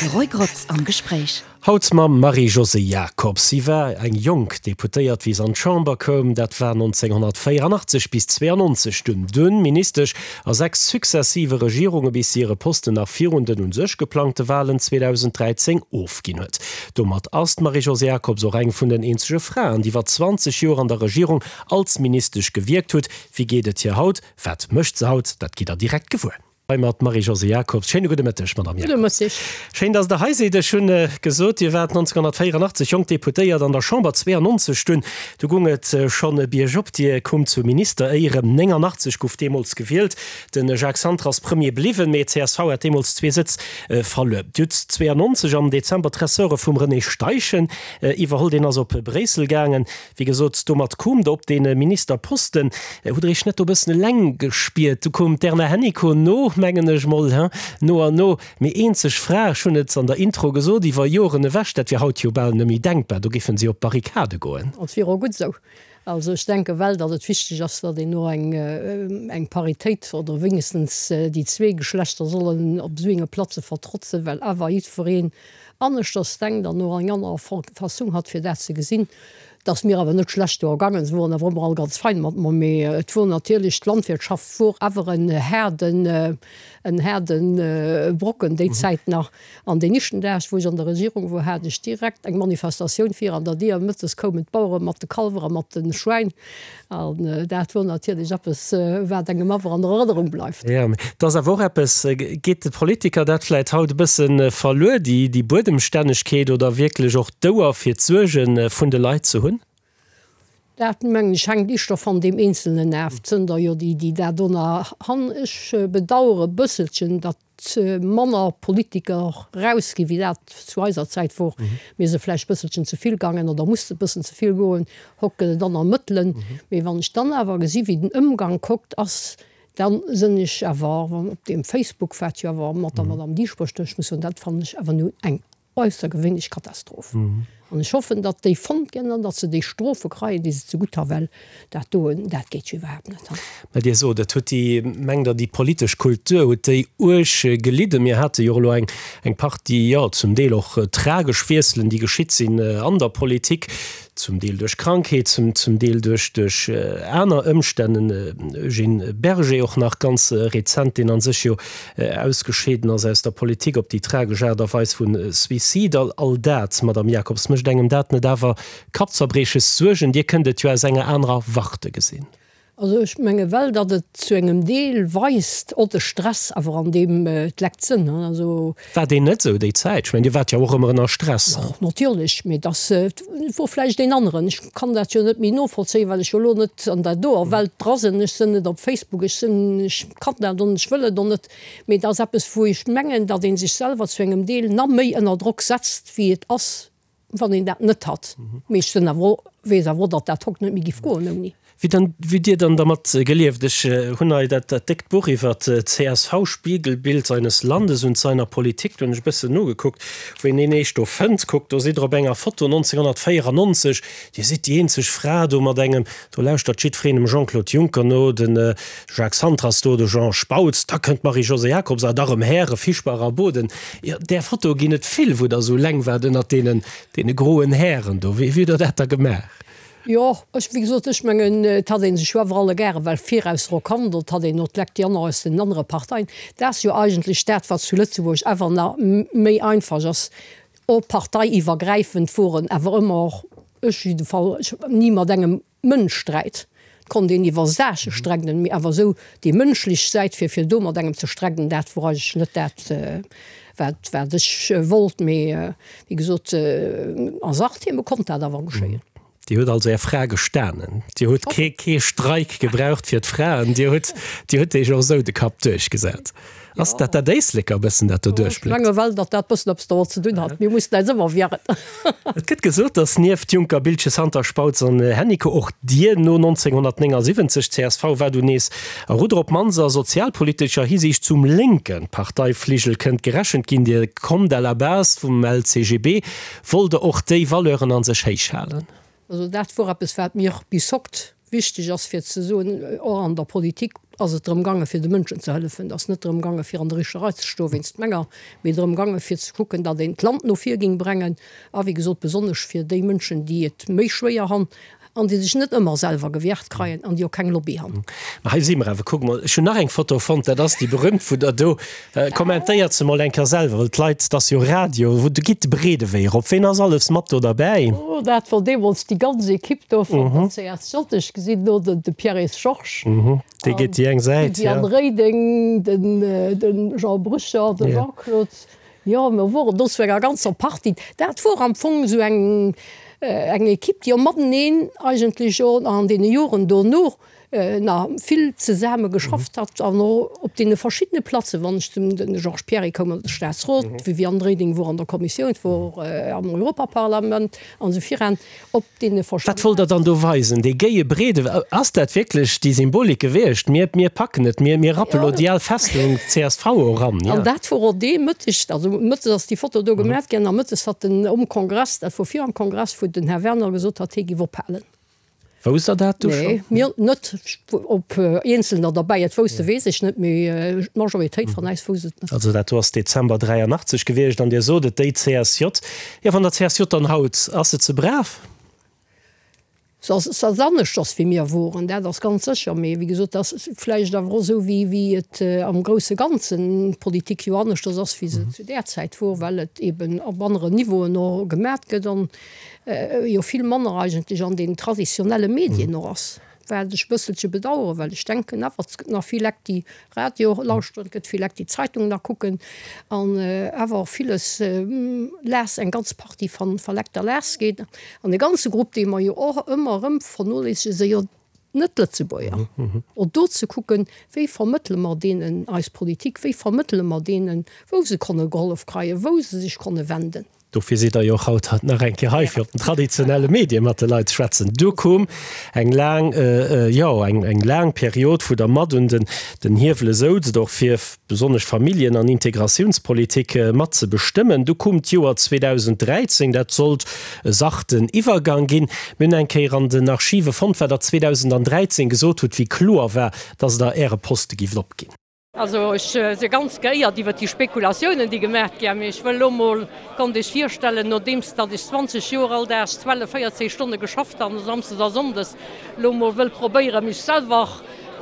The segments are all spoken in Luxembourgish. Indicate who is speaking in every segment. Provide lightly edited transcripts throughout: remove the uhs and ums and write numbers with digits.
Speaker 1: De Roy Grotz am Gespréich.
Speaker 2: Haut mam Marie-Josée Jacobs. Si war eng jonk Deputéiert, wéi se an d'Chamber koum. Dat war 1984 bis 92 dunn. Dunn Ministesch a 6 successive Regierunge bis si hire Posten nach virun den un sech geplangte Walen 2013 ofginn huet. Domat ass d'Marie-Josée Jacobs och eng vun den eenzege Fraen, déi iwwer 20 Joer an der Regierung als Ministesch gewierkt hutt. Wéi geet et hir haut? Wat mécht se haut? Dat gitt der direkt gewuer. Hei mat Marie-Josée Jacobs. Schéine gudde Mëtteg, Madamm
Speaker 3: Jacobs. Gudde Mëtteg.
Speaker 2: Schéin, dass Der hei sidd. Ech hunn gesot, Dir waart 1984 jonk Deputéiert an der Chamber, 92 dunn, du gung et schonn biergop. Dir koumt zu Ministeréieren. 89 guff deemools gewielt. De Jacques Santer ass Premier bliwwen, mee csv hat deemools zwee Sëtz verluer. Dir hutt 92 am Dezember d'Ressorte vum René Steichen iwwerholl. Deen ass op Bréissel gaangen. Wéi gesot, domat koom Der op dee Ministerposten. Hutt Der Iech net do e bëssen eleng gespiert? Du koum d'Erna Hennicot no, mengen ech mol, he, no an no. Mee eenzeg Fra, ech hunn et an der Intro gesot, iwwer Joren ewech, dat wier haut jo bal net méi denkbar, do géifen si op d'Barrikade goen.
Speaker 3: Et wier och gutt esou. Also ech denke well, datt et wichteg ass, datt een och eng, eng Paritéit oder wéinegstens déi zwee Geschlechter sollen op esou enge Platze vertrotzen, well awer jiddwereen aneschters denkt an och eng aner Fassung hat fir dat ze gesinn. Et ass mir awer net schlecht do ergangen, se woren awer ëmmer all ganz fein mat mer, mee et wor natierlech, d'Landwirtschaft wor awer en haarden, en haarden Brocken déi Zäit nach. An deen éischten Dag wou ech an der Regierung wor, hat ech direkt eng Manifestatioun vir an der Dier, mëttes koumen d'Bauere mat de Kalwer a mat de Schwäin An dat wor natierlech eppes, wat engem awer an Erënnerung bleift.
Speaker 2: Jo, mee et ass awer och eppes, geet de Politiker dat vläit haut e bësse verluer, déi Buedemstännegkeet oder wierklech och d'Ouer fir d'Suerge vun de Leit ze hunn?
Speaker 3: Dat, mengen ech, hänkt éischter van deem Eenzelnen af. Et sënn der jo déi, déi dat do nach han. Ech bedauere e bësselchen, datt manner Politiker rausginn, wéi dat zu eiser Zäit wor. Mir se vläicht bësselchen ze vill gaangen oder musste bëssen ze vill goen. Hokt gëtt et aner Mëttelen. Mee wann ech dann awer gesi wéi den Ëmgank hokt ass, dann sënn ech awer op deem Facebook, wat jo awer mat der Madame Dieschbourg, ech muss soen, dat fannen ech awer nun eng Äussergewéinlech Katastroph. An ech hoffen, datt déi fonnt ginn an datt se déi Strofe kreien, déi se zegutt ha well dat doen, dat geet jo iwwerhaapt net.
Speaker 2: Mä Dir sot, et huet déi, mengt Der, déi politesch Kultur huet déi uerg gelidden? Mir hate jo och elo eng, eng Partie, jo, zum Deel och tragesch Wiesselen, déi geschitt sinn an der Politik, zum Deel duerch Krankheet, zum, zum Deel duerch, duerch aner Ëmstänn. Den Eugène Berger och nach ganz rezent, deen a sech jo ausgescheeden ass aus der Politik op déi tragesch Aart a Weis vu Suicide. All, all dat, Madame Jacobs, mécht engem dat net awer Kappzerbrieches, Suergen? Dir kënnt et jo aus enger anerer Warte gesinn.
Speaker 3: Also ech menge well, datt et zu engem Deel weist, och de Stress awer an deem d'Lekt sënn. Also.
Speaker 2: War deen net esou déi Zäit? Ech mengen, Dir waart jo och ëmmer ënner Stress.
Speaker 3: Jo, natierlech, mee dass wor vläicht een aneren. Ech kann dat jo net méi novollzéien, well ech jo elo net an der doer Welt dra sinn. Ech sinn net op Facebook, ech sinn, ech kann dat och net, ech wëll et och net. Mee et ass eppes, wou ech mengen, datt ee sech selwer zu engem Deel na méi ënner Drock setzt, wéi et ass, wann een dat net hat. Mee ech sinn awer och, weess awer och, datt dat hokt net méi giff goen ouni.
Speaker 2: Wéi dann, wéi hutt Dir dann dermat gelieft? Ech hunn hei dat, dat déckt Buch iwwer d'CSV, Spiegelbild seines Landes und seiner Politik, do hunn ech e bëssen nogekuckt, wou een een eescht do fënnt. Kuckt, do sidd Der op enger Foto 1994, Dir sidd déi eenzeg Fra do mat engem, do lauschtert jiddwereen dem Jean-Claude Juncker no, de Jacques Santer ass do, de Jean Spautz, da kënnt d'Marie-Josée Jacobs a da rëm Häre Fischbach a Boden. Jo, där Foto ginn et vill, wou Der esou eleng waart ënnert deenen, deene groen Hären do. Wéi hutt Der dat da gemaach?
Speaker 3: Jo, ech, wéi gesot, ech mengen, et hat ee sech jo awer alleguerre well viraus erkannt, et hat een och d'Lekt déi aner aus den anere Parteien. Dat ass jo eigentlech dat, wat zu Lëtzebuerg awer nach méi einfach ass, och parteiiwwergräifend woren awer ëmmer, ech jiddefall, ech ni mat engem Mënsch sträit. Et konnt een iwwer Saache strägden, mee awer esou déi mënschlech Säit, fir fir do mat engem ze strägden, dat wor eigentlech net dat, wat wat ech wollt. Mee wéi gesot, a Sachtheme konnt dat awer geschéien.
Speaker 2: Dir hutt also Är Fra gestanen. Dir hutt kee kee Streik gebraucht fir d'Fraen. Dir hutt Dir hutt Iech och esou de Kapp duerchgesat. Ass dat dat Éisleker e bëssen, dat do
Speaker 3: duerchbléckt? Ech menge well, datt dat bëssen eppes domat ze dinn hat. Mir mussen äis ëmmer wieren.
Speaker 2: Et gëtt gesot, datt nieft Juncker, Biltgen, Santer, Spautz an Hennicot och Dir no 1979, csv war dunn nees a Rudder, op d'mannst a sozialpolitescher Hisiicht zum lénke Parteifligel kënnt gerechent ginn. Dir kommt à la base vum LCGB. Wollt Der och déi Valeuren a sech héich halen?
Speaker 3: Also dat wor eppes, wat mir bis hokt. wichteg ass fir ze soen, och an der Politik ass et drëm gaange fir de Mënschen ze hëllefen. Et ass net drëm gaange fir an der Richerei ze stoe wéinst menger, mee drëm gaange fir ze kucken, datt een d'Land no vir géing brengen a wéi gesot besonnesch fir déi Mënschen, déi et méi schwéier han an déi sech net ëmmer selwer gewäert kreien an déi och keng Lobby han.
Speaker 2: Mä hei si mer awer. Kuck mol, ech hunn nach eng Foto fonnt, dat ass déi berühmt wou Der do, kommentéiert se mol eng Kéier selwer, well d'Leit, 't ass jo Radio, wou do gitt de breede Wee erop. Ween ass alles mat do derbäi?
Speaker 3: Oh, dat wor deemools déi ganz Equipe do vun der CSJ. Ech gesinn do den de Pierre-Yves Georges.
Speaker 2: Dee geet déi eng Säit,
Speaker 3: jo. D'Viviane Reding, den de Jean Brücher, de Jean-Claude. Jo, mer woren do zu enger ganzer Partie. Dat wor am Fong esou eng, eng Equipe, déi och mateneen eigentlech och an deene Joren dono nach vill zesame geschafft hat an och op deene verschiddene Platzen, wann ech zum, de Georges Pierry koum an de Staatsrot, d'Viviane Reding wor an der Kommissioun, wor am Europaparlament an esou viran. Op deene
Speaker 2: verschiddenen. Wat wollt Der dann do weisen? Dee géie breede, ass dat wierklech déi Symbolik gewiescht? Mir, mir packen et, mir, mir rappe lo déi al Festung csv eran,
Speaker 3: ja. An dat wor och dee Mëtteg, also mëttes ass déi Foto do gemat ginn, a mëttes hat den um Kongress, dat wor viram Kongress, wou den Här Werner gesot hat, hie giff ophalen.
Speaker 2: Wousst Der dat du
Speaker 3: scho? Nee, mir net. Ob Eenzelner derbäi et wousste weess ech net, mee d'Majoritéit van äis wousst et net.
Speaker 2: Also dat do ass Dezember 83 gewiescht an Dir sot et, déi CSJ. Jo, wann der CSJ dann haut, ass se ze brav?
Speaker 3: Se ass, se ass aneschters wéi mir woren, dat ass ganz sécher. Mee wéi gesot, dat ass vläicht awer och esou wéi, wéi et am grousse Ganzen d'Politik jo aneschters ass wéi se zu där Zäit wor, well et eben op aneren Niveauen och gemat gëtt an jo vill manner eigentlech an den traditionelle Medien och ass, wat ech e bësselche bedauern, well ech denken awer, et gëtt nach vill Lekt, déi Radio lauschteren, et gëtt vill Lekt, déi Zeitung nach kucken an awer och villes lass, eng ganz Partie van Lekt da lass geet. An e ganze Grupp, dee mer jo och ëmmer erëm vernoléissegen, si jo d'Net-Lëtzebuerger. Och do ze kucken, wéi vermëttele mer deenen eis Politik, wéi vermëttele mer deenen, wou se konne gehollef kreien, wou se sech konne wenden.
Speaker 2: Dofir sidd Der jo och haut nach eng Kéier hei, fir op den traditionelle Medie mat de Leit ze schwätzen. Du koum eng laang, jo, eng laang Period, wou Der mat un den Hiewele souzt, och fir besonnesch Familljen an Integratiounspolitik mat ze bestëmmen. Du koum d'Joer 2013, dat sollt e sachten Iwwergang ginn. Mir hunn eng Kéier an den Archive fonnt, wat Der 2013 gesot hutt, wéi kloer war, dass Der Äre Poste gift opginn.
Speaker 3: Also ech si ganz geéiert iwwert déi Spekulatiounen, déi gemaach gi. Mee ech wëll elo mol, konnt Iech virstellen, nodeems datt ech 20 Joer all Dag 12, 14 Stonne geschafft han, samsdes a sonndes, elo mol wëll probéieren, mech selwer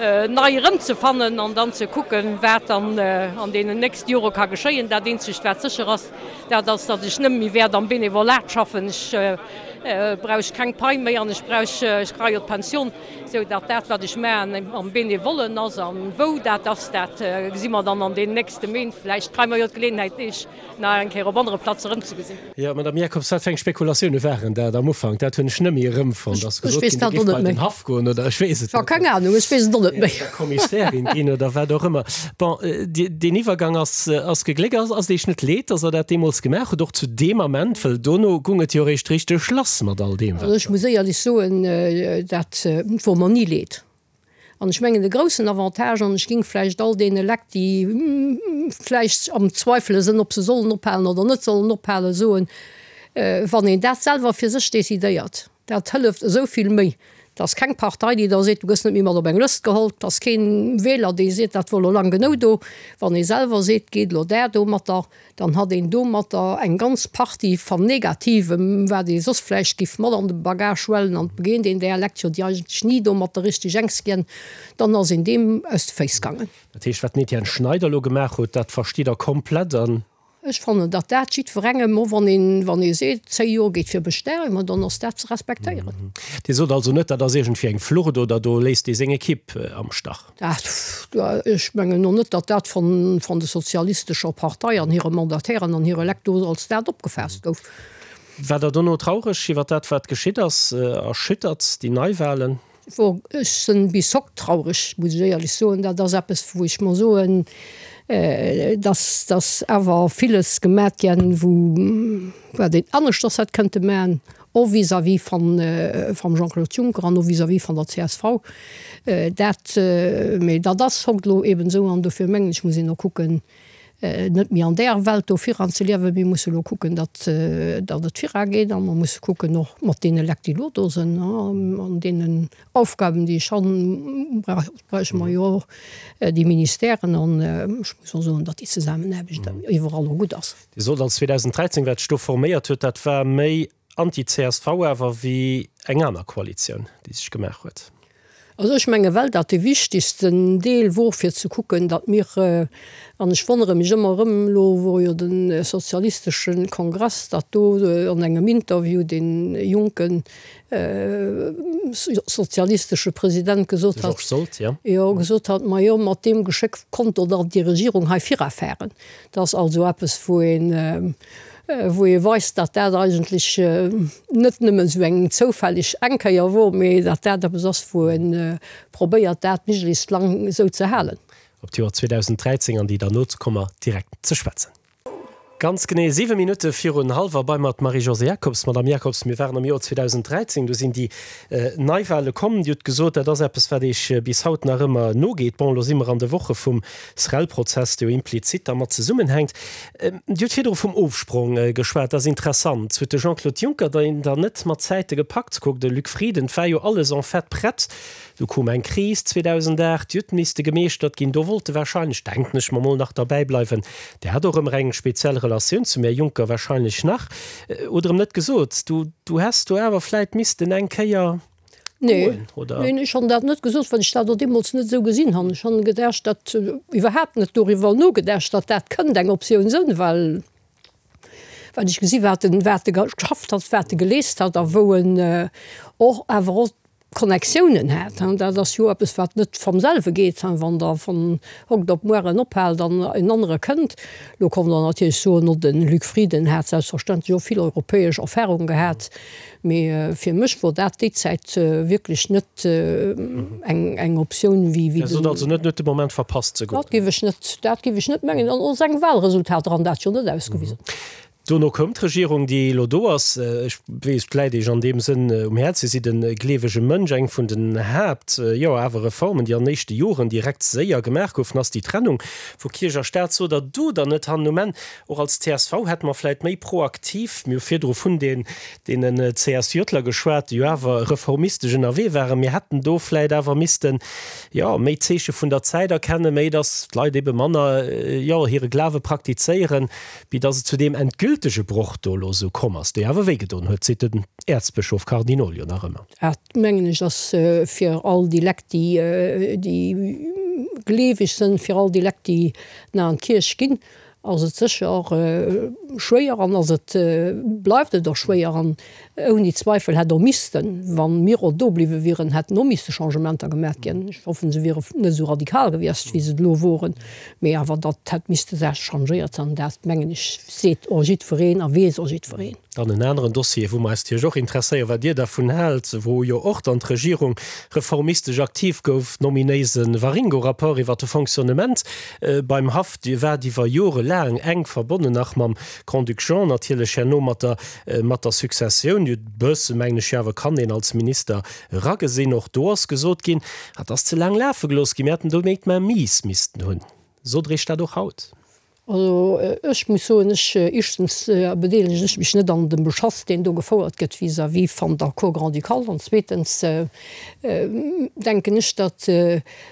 Speaker 3: nei erëmzefannen an dann ze kucken, wat dann an deenen nächste Jore ka geschéien. Dat eenzegt, wat sécher ass, dat ass, datt ech nëmme méi wäert am Benevolat schaffen. Ech brauch keng Pai méi an ech brauch, ech kréie jo d'Pension. Sou datt dat, wat ech maachen, am Benevollen ass. A wou dat ass, dat gesi mer dann an deenen nächste Méint. Vläicht kréie mer jo d'Geleeënheit, Iech nach eng Kéier op anere Plaze erëmzegesinn.
Speaker 2: Jo, Madame Jacobs, wat fir eng Spekulatioune waren dat am Ufank? Dat hunn ech net méi erëmfonnt. Ass gesot ginn, Dir giff bei den Haff goen oder ech weess et net.
Speaker 3: Keng Anung, ech weess et och net méi.
Speaker 2: Oder Kommissärin ginn oder wat och ëmmer. Bon, deen Iwwergang ass, ass gegléckt. Ass et Iech net leed, datt Der dat deemools gemaach hutt, och zu deem Ament? Well dono gung et jo eréischt richteg lass mat all deem,
Speaker 3: wat. Also ech muss éierlech soen, dat wor mer ni leed. An ech mengen de groussen Avantage, an ech ging vläicht all deene Lekt, déi vläicht am Zweifele sënn, ob se sollen ophalen oder net sollen ophalen, soen, wann een dat selwer fir sech decidéiert, Dat hëlleft esou vill méi. Et ass keng Partei, déi da seet, du gëss net méi mat op eng Lëscht geholl. Et ass keen Wieler, dee seet, dat wor elo lang genou do. Wann ee selwer seet, geet elo där domatter, dann hat een domatter eng ganz Partie van Negativem, wat ee soss vläicht giff mat an de Bagage huelen an et begéint een där Lekt jo, déi eigentlech ni domatter richteg enks ginn, dann ass een deem aus de Féiss gaangen.
Speaker 2: Dat heescht, wat den Etienne Schneider elo gemaach huet, dat verstitt Der komplett an.
Speaker 3: Ech fannen, datt dat jiddwerengem, och wann een, wann ee seet, 10 Joer geet fir Bestärung, ma dann ass dat ze respektéieren.
Speaker 2: Dir sot also net, dat ass iergendwéi eng Flucht oder do léisst ee seng Ekipp am Stach?
Speaker 3: Dat, ech mengen och net, datt dat von, von de sozialistescher Partei an hire Mandatairen an hire Lekt do als dat opgefaasst gouf.
Speaker 2: War Der dono traureg iwwer dat, wat geschitt ass? Erschüttert déi Neiwahlen?
Speaker 3: Wor ech sen bis hokt traureg, muss ech éierlech soen. Dat ass eppes wou ech mer soen, dass dass awer villes gemat gänn wou wat een aneschters hätt kënnte man, och vis-à-vis van vam Jean-Claude Juncker an och vis-à-vis van der csv. Dat, mee dat ass hokt elo eben esou an dofir mengen ech muss een och kucken. Net méi an där Welt do viran ze liewen. Mir musse elo kucken, datt, datt et virageet a mer musse kucken och mat deene Lekt, déi elo do sinn, an deenen Aufgaben, déi ech han, brauche mer jo och déi Ministèren. An ech muss och soen, datt déi Zesammenaarbecht iwwerall och gutt ass.
Speaker 2: Dir sot als 2013, wat sech do forméiert huet, dat war méi anti-CSV awer wéi eng aner Koalitioun, déi sech gemaach huet.
Speaker 3: Also ech menge well dat dee wichtigsten Deel wor fir ze kucken, datt mir, an ech wonnere mech ëmmer erëm, elo wor jo de sozialistesche Kongress, datt do an engem Interview dee jonke sozialistesche President gesot
Speaker 2: hat, Georges Sold,
Speaker 3: jo. Jo, gesot hat, majo mat deem Geschéck konnt do dann déi Regierung hei virafahren. Dat ass also eppes wou een, wou ee weist, datt dat eigentlech net nëmmen esou eng zoufälleg eng Kéier wor, mee datt dat eppes ass, wou ee probéiert, dat méiglechst lang esou ze halen.
Speaker 2: Op d'Joer 2013 an déi derno ze komme mer direkt ze schwätzen. Ganz genee 7 Minutte virun hallwer bei mer d'Marie-Josée Jacobs. Madame Jacobs, mir waren am Joer 2013, do sinn déi Neiwahle komm. Dir hutt gesot, dat ass eppes, wat Iech bis haut nach ëmmer nogeet. Bon, elo si mer an de Woche vum SREL-Prozess, dee jo implizit dermat zesummenhänkt. Dir hutt virdru vum Ofsprong geschwat, dat ass interessant. Huet de Jean-Claude Juncker deen dann net mat Zäite gepackt? Kuckt, de Luc Frieden, 't war jo alles en fait prett. Du koum eng Kris 2008, déi huet misste gemeeschtert ginn. Do wollt e wahrscheinlech, denken ech mer mol, nach derbäi bleiwen. Der hat och ëmmer eng speziell Relatioun zum Här Juncker wahrscheinlech nach. Oder em net gesot, du, du häss do awer vläit missten eng Kéier.
Speaker 3: Nee, goen, oder? Neen, ech han dat net gesot, well ech dat och deemools net esou gesinn han. Ech han gedacht, dat, iwwerhaapt net doriwwer nogedacht, datt dat kënnt eng Optioun sënn, well, well ech gesi wat en, wat e geschafft hat, wat e geleest hat a wou en och awer och Connectiounen hat. Dat ass jo eppes, wat net vam selwe geet, wann Der von hokt op muar en ophaalt an en anere kënnt. Lo kommt Der natierlech soen, no de Luc Frieden hat selbstverständlech och vill europäesch Erfahrung gehat. Mee fir mech wor dat déi Zäit wierklech net eng Optioun wéi
Speaker 2: den. Dir sot also net, en huet de Moment verpasst ze goen?
Speaker 3: Dat géif ech net, dat géif ech net mengen. An och seng Wahlresultater han dat jo net ausgewisen.
Speaker 2: Dono koum d'Regierung, déi elo do ass. Ech weess, et läit Iech an deem Sënn um Häerz, Dir sidd e gleewege Mënsch. Eng vun den Haapt, jo awer Reformen, déi an den éischte Joren direkt séier gemaach goufen, ass déi Trennung vu Kierch a Staat. Sot Der do dann net hannen um Enn, Och als csv hätte mer vläit méi proaktiv, mir hu virdru vun den deenen CSJler geschwat, déi jo awer reformistesch ënnerwee waren, mir hätten do vläit awer missten, jo, méi Zeeche vun der Zäit erkennen, méi datt d'Leit ebe manner, jo, hire Glawe praktizéieren, wéi datt et zu deem endgültege Broch do elo esou komm ass, dee awer wéigedoen huet, seet den Äerzbëschof Cardinol jo nach ëmmer.
Speaker 3: Dat, mengen ech, ass fir all déi Lekt, déi, déi gleeweg sënn, fir all déi Lekt, déi nach an d'Kierch ginn, ass et sécher schwéier an ass et, bleift et och schwéier an ouni Zweifel hätt och missten, wa mir och do bliwwe wieren, hätten och misste Changementer gemaat ginn. Ech hoffen, se wiere net esou radikal gewiescht, wéi se elo woren, mee awer datt hätt misste Saache changéiert an dat, mengen ech, seet och jiddwereen a weess och jiddwereen.
Speaker 2: Dann en aneren Dossier, wou mer eis natierlech och interesséieren, wat Dir dervun haalt, wou jo och dann d'Regierung reformistesch aktiv gouf, nominéise Waringo-Rapport iwwert de Fonctionnement beim Haff. Dir waart iwwer Jore laang enk verbonnen nach mam Grand-Duc Jean, natierlech herno mat der, mat der Successioun. Dir hutt e bësse, mengen ech jo awer, kann een als Minister eragesinn. Och do ass gesot ginn, dat ass ze laang lafe gelooss ginn, mir hätten do méi d'Main-mise missten hunn. Sot Der Iech dat och haut?
Speaker 3: Also ech muss soen, ech, éischtens bedeelegen ech mech net an dem Beschass, deen do gefouert gëtt vis-à-vis van der Cour grand-ducale, an zweetens denken ech, datt,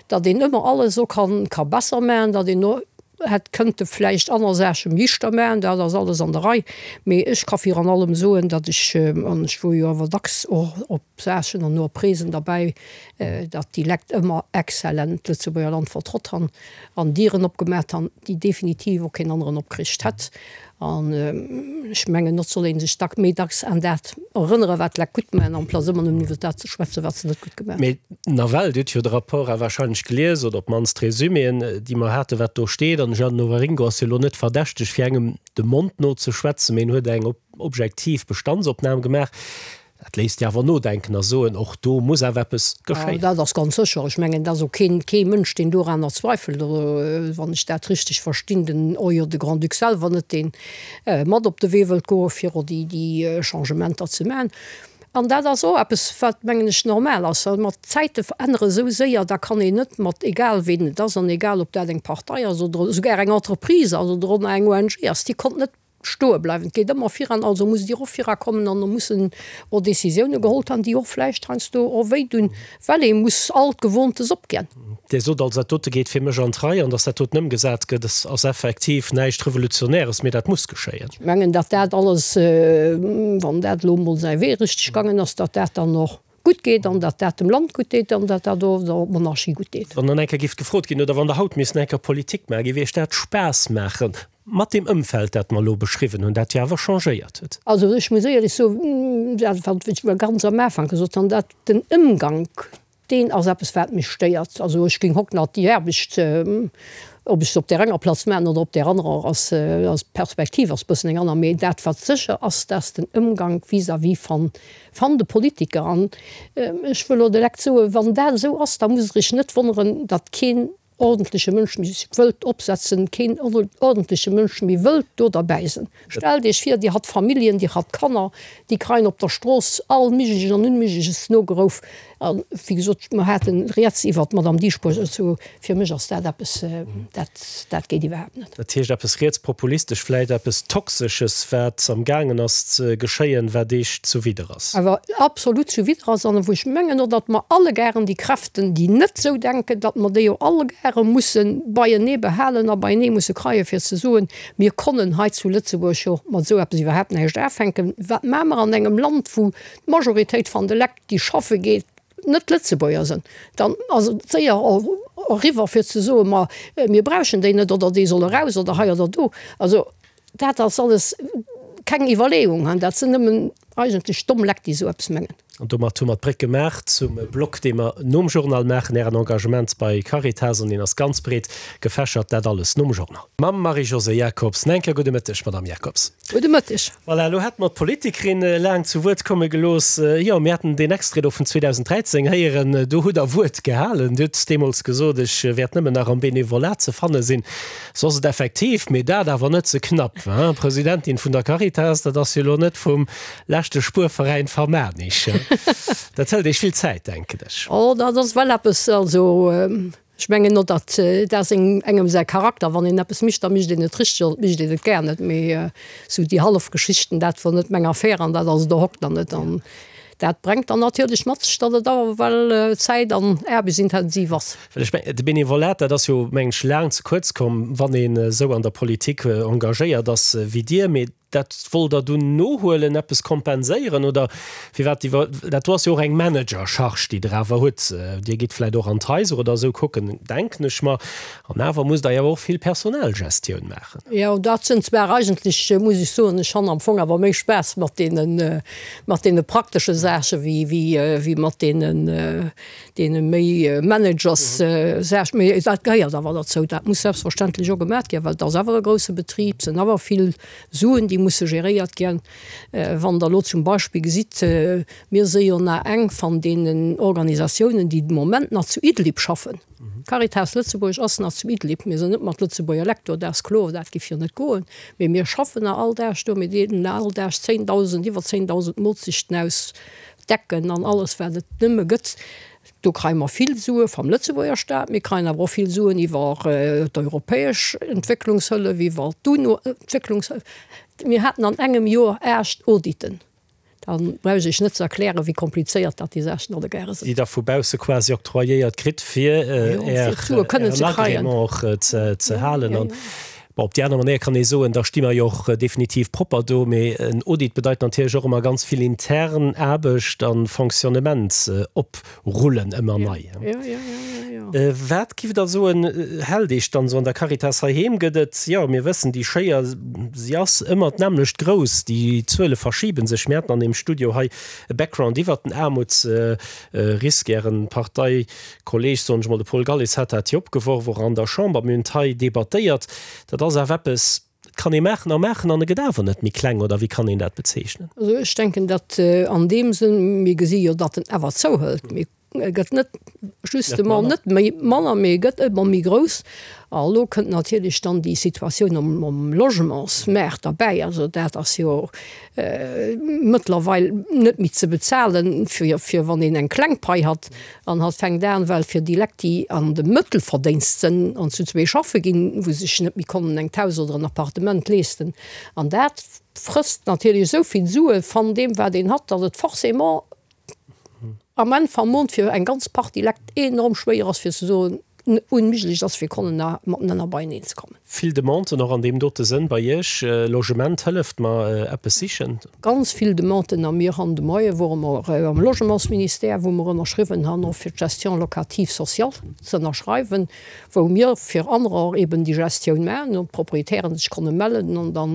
Speaker 3: datt een ëmmer alles och kann, ka besser maachen, datt een och hätt kënnte vläicht aner Saache liichter maachen, dat ass alles an der Rei. Mee ech ka virun allem soen, datt ech, an ech wor jo awer dacks och op Saachen an och op Reesen derbäi, datt déi Lekt ëmmer exzellent d'Lëtzebuerger Land vertrott han an Dieren opgemaat han, déi definitiv och keen aneren opkricht hätt. An ech mengen, et soll ee sech dack méi dacks aan dat erënnere wat d'Lekt gutt maan, amplaz ëmmer nëmmen iwwer dat ze schwätzen, wat se net gutt gemaat
Speaker 2: hunn. Mee nawell, Dir hutt jo de Rapport awer wahrscheinlech gelies, oder op d'mannst d'Resuméen, déi mer haten, wat do steet. An de Jeannot Waringo ass jo elo net verdächteg, fir engem de Mond no ze schwätzen, mee en huet eng objektiv Bestandsopnam gemaach. Dat léisst jo awer nodenken a soen, och do muss awer eppes geschéien.
Speaker 3: Dat ass ganz sécher. Ech mengen, et ass och keen, kee Mënsch, deen doranner zweifelt, oder wann ech dat richteg verstinn, den, oh jo, de Grand-Duc selwer net, deen mat op de Wee wëllt goen, fir och déi, déi Changementer ze maachen. An dat ass och eppes, wat, mengen ech, normal ass, well mer d'Zäite verännere esou séier, da kann een net mat, egal ween et ass an egal ob dat eng Partei ass oder esouguer eng Entreprise ass oder och nach eng ONG ass, déi konnt net stoe bleiwen. Et geet ëmmer viran, also musst Dir och virakommen an do mussen och Décisioune geholl ginn, déi och vläicht heiansdo och wéi dun, well ee muss alt Gewohntes opginn.
Speaker 2: Dir sot also, dat dote geet fir mech an d'Rei an datt dat doten ëmgesat gëtt, ass effektiv näischt Revolutionäres, mee dat muss geschéien.
Speaker 3: Ech mengen, datt dat alles, wann dat elo emol säi Wee richteg gaangen ass, datt dat dann och gutt geet an datt dat dem Land gutt deet an datt dat och der Monarchie gutt deet.
Speaker 2: Wann dann eng Kéier géif gefrot ginn, oder wann Der haut misst eng Kéier Politik maachen, géif Iech dat Spaass maachen? Mat deem Ëmfeld, dat mer elo beschriwwen hunn, dat jo awer changéiert huet.
Speaker 3: Also ech muss éierlech soen, dat wat ech ganz am Ufank gesot hunn, dat den Ëmgank, deen ass eppes wat mech stéiert. Also ech géing hock nach déi Aarbecht, ob ech se op där enger Platz maachen oder op där anerer, ass ass d'Perspektiv ass bëssen eng aner. Mee dat wat sécher ass, dat ass den Ëmgank vis-à-vis van van de Politiker. An ech wëll och direkt soen, wann dat esou ass, da musst Der Iech net wonneren, datt keen ordentleche Mënsch méi sech wëllt opsetzen, keen ordentleche Mënsch méi wëllt do derbäi sinn. Stellt Iech vir, Dir hatt Familljen, Dir hatt Kanner, déi kreien op der Strooss all Méigleches an Unméigleches nogerouf. A wéi gesot, mer haten rieds iwwert d'Madame Dieschbourg, also fir mech ass dat eppes, dat, dat geet iwwerhaapt net.
Speaker 2: Dat heescht eppes rietspopulistesch, vläicht eppes Toxesches, wat am gaangen ass ze geschéien, wat Iech zuwidder ass.
Speaker 3: Awer absolut zuwidder ass an wou ech mengen och, datt mer allegaren déi Kräften, déi net esou denken, datt mer déi och allegare musse beienee behalen a beienee musse kreien, fir ze soen, mir konnen hei zu Lëtzebuerg jo mat esou eppes iwwerhaapt näischt afänken. Wat maache mer an engem Land, wou d'Majoritéit van de Lekt, déi schaffe geet, net Lëtzebuerger sinn? Dann ass et séier eriwwer fir ze soen, ma mir brauchen déi net oder déi solle raus oder hei oder do. Also Dat ass alles keng Iwwerleeung, dat sinn nëmmen eigentlech domm Lekt, déi esou eppes mengen.
Speaker 2: An domat hu mer d'Bréck gemaach zum Block, dee mer nom Journal maachen, Ären Engagement bei Caritas, an deen ass ganz breet gefächert. Dat alles nom Journal. Mam Marie-Josée Jacobs. Nach eng Kéier gudde Mëtteg, Madamm Jacobs.
Speaker 3: Gudde Mëtteg.
Speaker 2: Voilà, elo hätte mer d'Politikerin laang zu Wuert komme gelooss. Jo, mir haten deen Extrait do vun 2013 héieren. Do hutt Der Wuert gehalen. Dir hutt deemools gesot, Ech wäert nëmmen nach am Benevolat ze fanne sinn. Soss et effektiv, mee dat awer net ze knapp, hein? Presidentin vun der Caritas, dat ass jo lo net vum leschte Spuerveräin Vermaarnich. Dat hëlt Iech vill Zäit, denken ech.
Speaker 3: Oh, dat ass well eppes, also ech mengen och, datt dat ass engem säi Charakter, wann een eppes mécht, da mécht een et richteg oder et mécht een et gär net. Mee esou déi hallef Geschichten, dat wor net meng Affär an dat ass et och hokt nach net. An dat brengt dann natierlech mat sech, datt et awer well zäit an aarbechtsintensiv ass.
Speaker 2: Well ech mengen, de Benevolat, dat ass jo, mengen ech, laang ze kuerz komm, wann een esou an der Politik engagéiert ass wéi Dir. Mee dat wollt Der dunn nohuelen, eppes kompenséieren oder firwat iwwer? Dat do ass jo och eng Managercharge, déi Der awer hutt. Dir gitt vläicht och an d'Haiser oder esou kucken, denken ech mer. An awer musst Der jo och vill Personalgestioun maachen.
Speaker 3: Jo, dat sinn zwar eigentlech, muss ech soen, ech han am Fong awer méi Spaass mat deenen, mat deene praktesche Saache wéi, wéi, wéi mat deenen, deene méi Managers Saach, mee dat gehéiert awer derzou, dat muss selbstverständlech och gemat ginn, well et ass awer e grousse Betrib, et sinn awer vill Suen, déi musse geréiert ginn. Wann Der elo zum Beispill gesitt, mir si jo nach eng van deenen Organisatiounen, déi de Moment nach zu Idlib schaffen. Caritas Lëtzebuerg ass nach zu Idlib. Mir sinn net mat Lëtzebuerger Lekt do, dat ass kloer, dat giff jo net goen, mee mir schaffen nach all Dag do, mir deelen nach all Dag 10.000, iwwer 10.000 Molzechten aus, Decken an alles wat et nëmme gëtt. Do kreie mer vill Sue vam Lëtzebuerger Staat, mir kreien awer och vill Suen iwwer d'europäesch Entwécklungshëllef, iwwer d'UNO-Entwécklungshëllef. Mir haten an engem Joer 8 Auditen. Da brauch ech Iech net ze erklären, wéi komplizéiert dat déi Saachen alleguerre
Speaker 2: sinn. Déi Der vu bausse quasi octroyéiert kritt, fir Ären Agrément och ze halen. Bon, op déi aner Manéier kann ee soen, da sti mer jo och definitiv propper do. Mee en Audit bedeit natierlech och ëmmer ganz vill intern Aarbecht a Fonctionnement oprullen, ëmmer nei. Wat giff Der soen, hält Iech dann esou an der Caritas heiheem? Gëtt et, jo, mir wëssen, déi Schéier, si ass ëmmer d'nämmlecht grouss, déi Zuele verschibe sech. Mir haten an deem Studio hei e Background iwwert den Aarmutsrisk. Ären Partei Kolleg, soen ech mol, de Paul Galles hat dat jo opgeworf, och an der Chamber. Mir hunn et hei debattéiert. Dat ass awer eppes, dat kann ee maachen a maachen an e gëtt awer net méi kleng, oder wéi kann een dat bezeechnen?
Speaker 3: Also ech denken, datt an deem Sënn, mir gesi jo, datt en awer zouhëlt. Mir. E gëtt net justement net méi manner, mee e gëtt ëmmer méi grouss. A elo kënnt natierlech dann déi Situatioun um Logementsmaart derbäi. Also dat ass jo mëttlerweil net méi ze bezahlen, fir, fir wann een eng kleng Pai hat. An hatt fänkt an, well fir déi Lekt, déi an de Mëttelverdénst sënn an zu zwee schaffe ginn, wou se sech net méi konnen eng Haus oder en Appartement leesten. An dat frësst natierlech esou vill Sue van deem, wat een hat, datt et forcément am Enn vam Mond fir eng ganz Partie Lekt enorm schwéier ass fir ze soen, unméiglech ass fir konnen na matenenner beieneen ze kommen.
Speaker 2: Vill Demanden och an deem dote Sënn bei Iech. Logement, hëlleft mer eppes sichen.
Speaker 3: Ganz vill Demanden a mir han de Moie wore mer am Logementsministère, wou mer ënnerschriwwen han och fir d'Gestion locative sociale ze ënnerschreiwen, wou mir fir anerer eben déi Gestioun maachen an d'Proprietären sech konne mellen an da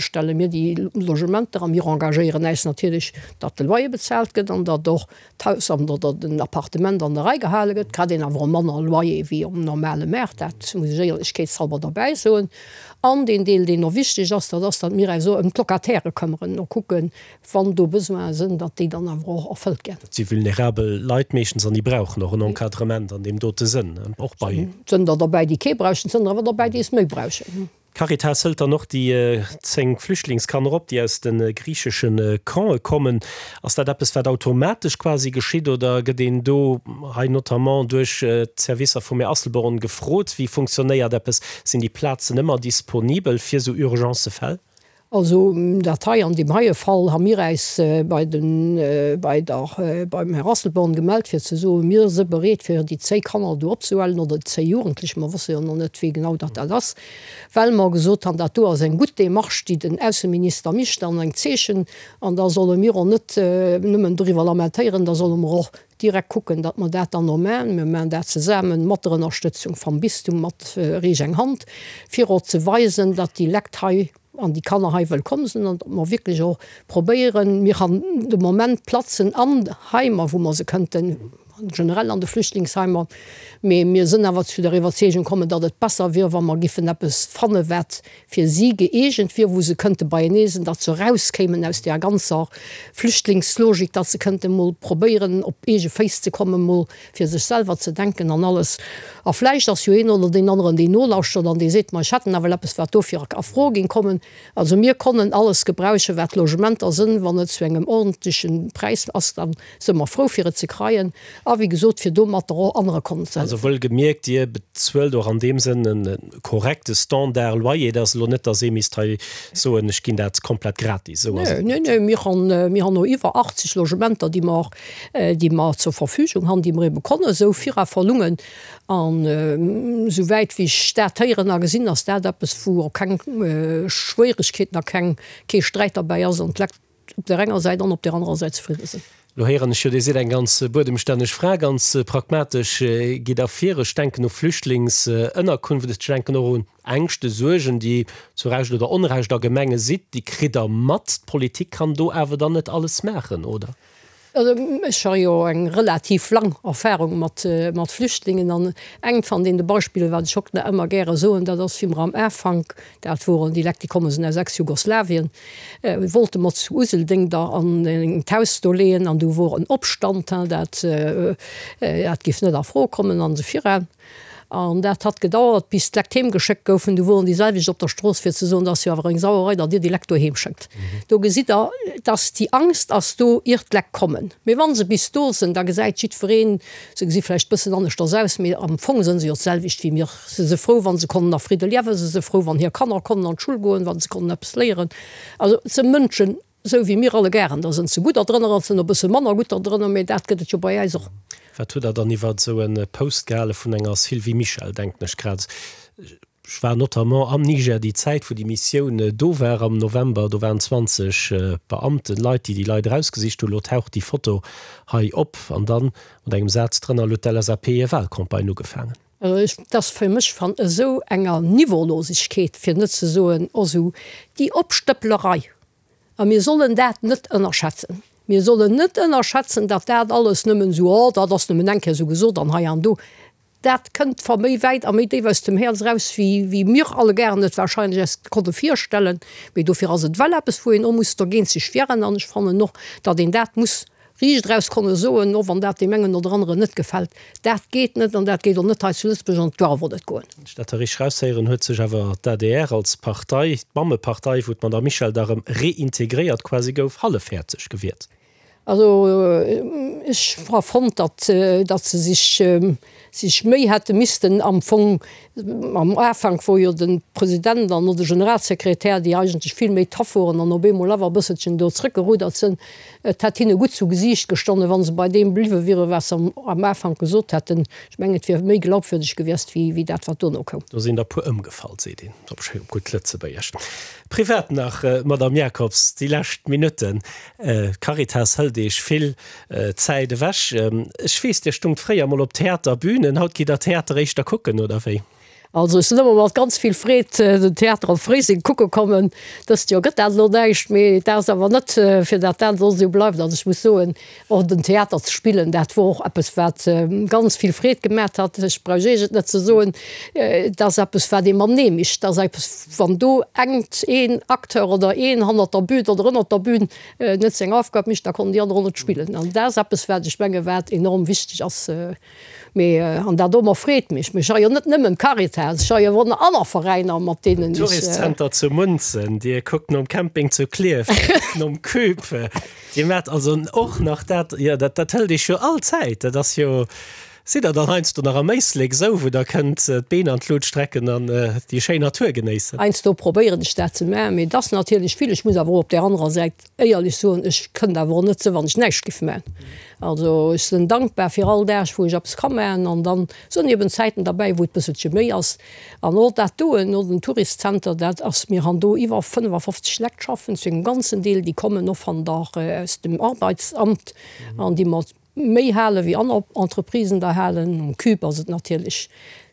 Speaker 3: stelle mir déi Logementer a mir engagéieren äis natierlech, datt de Loyer bezaalt gëtt an datt och d'Haus an oder den Appartement an der Rei gehale gëtt. Kritt een awer och manner Loyer wéi um normale Maart, dat muss ech éierlechkeetshalber derbäi soen. An deen Deel, deen och wichteg ass, dat ass, datt mir äis och ëm d'Locatairë këmmeren, no kucken, wann do Besoine sinn, datt déi dann awer och erfëllt ginn.
Speaker 2: Dat si vulnerabel Leit meeschtens an déi brauchen och en Encadrement an deem dote Sënn, och bei.
Speaker 3: Et sënn der derbäi, déi kee brauchen, et sënn der awer derbäi, déi es méi brauchen.
Speaker 2: D'Caritas hëlt dann och déi 10 Flüchtlingskanner op, déi aus de griichesche Campe kommen. Ass dat eppes, wat automatesch quasi geschitt oder gëtt een do hei notamment duerch d'Servicer vum Här Asselborn gefrot? Wéi funktionéiert eppes? Sinn déi Plazen ëmmer disponibel fir esou Urgencefäll?
Speaker 3: Also dat hei, an deem heie Fall ha mir äis bei den, bei der, beim Här Asselborn gemellt fir ze soen, mir si bereet fir déi zéi Kanner do opzehuelen oder déi zéi Jugendlech, mer wësse jo nach net wéi genau datt dat ass, well mer gesot han, dat do ass eng gutt Démarche déi den Ausseminister micht an eng Zeechen an da solle mir och net nëmmen doriwwer lamentéieren, da solle mer och direkt kucken, datt mer dat dann och maachen. Mir maachen dat zesaammen mat der Ënnerstëtzung vam Bistum, mat Reech eng Hand, fir och ze weisen, datt déi Lekt hei an déi Kanner hei wëllkomm sinn an datt mer wierklech och probéieren, mir han de Moment Platzen an Heimer, wou mer se kënnten, generell an de Flüchtlingsheimer, mee mir sinn awer zu der Iwwerzeegung kommen, datt et besser wier, wa mer giffen eppes fanne wat fir si gëeegent wier, wou se kënnte beienee sinn, datt se erauskéimen aus där ganzer Flüchtlingslogik, datt se kënnte mol probéieren op eege Féiss ze kommen, mol fir sech selwer ze denken an alles. A vläicht ass jo een oder deen aneren, deen nolauschtert an dee seet, ma ech hätt nawell eppes, wat dofir a Fro géing kommen. Also mir konnen alles gebrauchen, wat Logementer sënn, wann et zu engem ordentlechen Präis ass, da së mer frou fir et ze kreien a wéi gesot fir domatter och anere konnen ze
Speaker 2: hëllefen. Also wuel gemierkt, Dir bezuelt och an deem Sënn e korrekte Standard Loyer. Et ass elo net, datt ee misst hei soen, ech ginn dat komplett gratis. Esou ass et
Speaker 3: net. Nee, nee, mir han, mir han no iwwer 80 Logementer, déi mer, déi mer zur Verfügung han, déi mer ebe konnen esou vira verlungen. An esou wäit wéi ech dat héieren a gesinn, ass dat eppes, wou och keng Schwéieregkeeten a keng, kee Sträit derbäi ass an d'Lekt op där enger Säit an op där anerer Säit zefridde sinn.
Speaker 2: Lo héieren ech jo, Dir sidd eng ganz buedemstänneg Fra, ganz pragmatesch gitt Der vir. Ech denken u Flüchtlingsënnerkunft, ech denken och un Ängschte, Suergen, déi zu Recht oder Onrecht a Gemenge sidd. Déi kritt Der mat. D'Politik kann do awer dann net alles maachen, oder?
Speaker 3: Also ech ha jo eng relativ lang Erfahrung mat mat Flüchtlingen an engt van deene Beispiller, wat ech och nach ëmmer gäre soen, dat ass wéi mer am Afank, dat woren déi Lekt, déi komme sinn aus Ex-Jugoslawien, wollte mer zu Useldeng da an engt Haus do leeën an du wor en Opstand, dat dat giff net a Fro kommen an esou viran. An dat hat gedauert, bis d'Lekt heem geschéckt goufen. Du woren déi selwecht op der Strooss, fir ze soen, dat ass jo awer eng Sauerei, datt Dir déi Lekt doheem schéckt. Do gesitt Der, dass déi Angst ass do, ier d'Lekt kommen. Mee wa se bis do sinn, da gesäit jiddwereen, se gesi vläicht bëssen aneschters aus, mee am Fong sënn se jo d'selwecht wéi mir. Se si frou, wa se konnen a Fridde liewen, se si frou, wann hir Kanner konnen an d'Schull goen, wa se konnen eppes léieren. Also et si Mënschen, Esou wéi mir alleguerren, da sënn se gudder drënner an sënn e bësse manner gutter drënner, mee dat gëtt et jo bei äis och.
Speaker 2: Wat hutt Der dann iwwert esou e Post gehale vun enger Sylvie Mischel, denken ech grad. Ech war notamment am Niger déi Zäit, wou déi Missioun do war am November, do waren 20 Beamten, Leit, déi déi Leit erausgesicht hunn. Elo taucht déi Foto hei op an dann mat engem Saz drënner, Elo huet d'LSAP hir Wahlcampagne ugefaangen.
Speaker 3: Et ass fir mech van esou enger Niveaulosegkeet, fir net ze soen och esou déi Opstëpplerei, A mir sollen dat net ënnerschätzen. Mir sollen net ënnerschätzen, datt dat alles nëmmen esou, oh, dat ass nëmmen eng Kéier esou gesot an hei an do. Dat kënnt va méi wäit a méi déif aus dem Häerz eraus, wéi, wéi mir alleguerten et wahrscheinlech eis konnte virstellen. Mee dofir ass et well eppes, wou een och muss dergéint sech wieren. An ech fannen och, datt een dat muss. riicht eraus konne soen, och wann dat deem engen oder aneren net gefält, dat geet net an dat geet och net hei zu Lëtzebuerg an et darf och net goen.
Speaker 2: Wann ech dat da richteg eraushéieren, huet sech awer d'ADR als Partei, d'Mammepartei, wou d'Madame Michel da erëm reintegréiert quasi gouf, hallefhäerzeg gewiert.
Speaker 3: Also ech ha fonnt, datt datt se sech sech méi hätte missten am Fong am Ufank, wou jo de President an och de Generalsekretär, déi eigentlech vill méi tough woren an op eemol awer e bësselchen do zrëckgeruddert sënn, et hätt hinne gutt zu Gesiicht gestonnen, wa se bei deem bliwwe wieren, wat se am Ufank gesot hätten. Ech mengen, et wier méi glaubwürdeg gewiescht wéi wéi dat, wat dono koum.
Speaker 2: Do sinn der puer ëmgefall, seet een op schéi op gutt Lëtzebuergesch. Privat nach, Madame Jacobs, déi lescht Minutten. D'Caritas hëlt Iech vill Zäit ewech. Ech weess, Dir stungt fréier mol op Theaterbünen. Haut gitt Der Theater éischter kucken, oder wéi?
Speaker 3: Also ech sinn ëmmer mat ganz vill Freed den Theater op Fréiseng kucke kommen. Dëst Joer gëtt dat elo näischt, mee dat ass awer net fir dat dat elo esou bleift. Also ech muss soen, och den Theater ze spillen, dat wor och eppes wat ganz vill Freed gemat hat. Ech brauch Iech et net ze soen, et ass eppes wat ee matenee mécht. Et ass eppes Wann do engt een Acteur oder een hannert der Bühn oder ënnert der Bühn net seng Aufgab mécht, da konnen déi aner och net spillen. An dat ass eppes, wat ech menge wat enorm wichteg ass. Mee, an dat domat freet mech, mee ech ha jo net nëmmen d'Caritas, ech ha jo och nach aner Veräiner, mat deenen ech.
Speaker 2: Touristcenter zu Munzen, Dir kuckt nom Camping zu Klierf, Dir kuckt nom Cube, Dir maacht also och nach dat, jo dat hëlt Iech jo all Zäit, dat ass jo. Sidd der dann heiansdo nach am Éislek esou, wou der kënnt d'Been an d'Lut strecken an déi schéin Natur genéissen?
Speaker 3: Heiansdo probéieren ech dat ze maachen, mee et ass natierlech vill. Ech muss awer och op där anerer Säit éierlech soen, ech kënnt awer och net sou, wann ech näischt giff maachen. Also ech sinn dankbar fir all Dag, wou ech eppes ka maachen an dann sinn eben Zäiten derbäi, wou et bësselche méi ass. An och dat doen, och den Touristcenter, dat ass, mir han do iwwer 55 Lekt schaffen, zu engem ganzen Deel, déi kommen och van der, aus dem Arbeitsamt an déi mer Méi hale wéi aner Entreprisen der halen. Um Cube ass et natierlech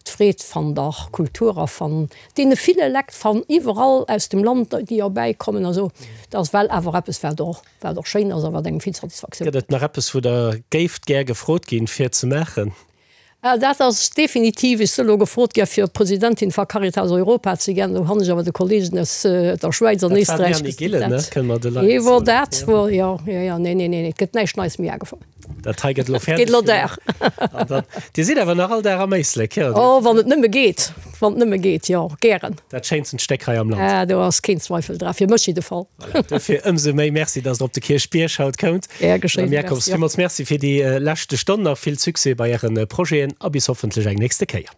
Speaker 3: d'Freed van der Kultur a van deene ville Lekt van iwwerall aus dem Land, déi erbäi kommen a sou. Dat ass well awer eppes, wat och, wat och schéin ass a wat engem vill Satisfaktioun
Speaker 2: Gëtt et nach eppes, wou Der géift gär gefrot ginn, fir ze maachen?
Speaker 3: Dat ass definitiv, ech sinn elo gefrot gi fir Presidentin va Caritas Europa ze ginn. Do han ech awer de Kollegen aus der Schwäiz an Éisträich gesot, dat wor dat wor, jo, jo, jo, nee, nee, nee, et gëtt näischt Neies méi agefonnt.
Speaker 2: Dat hei gëtt elo fäerdeg gemaach. Dir sidd awer nach all Dag am Éislek, jo?
Speaker 3: Oh, wann et nëmme geet, wann et nëmme geet, jo, gären.
Speaker 2: Dat schéinsten Stéck hei am
Speaker 3: Land. Ah, do ass keen Zweifel dra, fir mech jidde Fall.
Speaker 2: Voilà, dofir ëmsou méi Merci, dass Der op de Kierchbierg haut koumt.
Speaker 3: Gär geschéien.
Speaker 2: Madame Jacobs, villmools Merci fir déi leschte Stonn. Nach vill Succès bei Äre Projeten a bis hoffentlech eng nächste Kéier.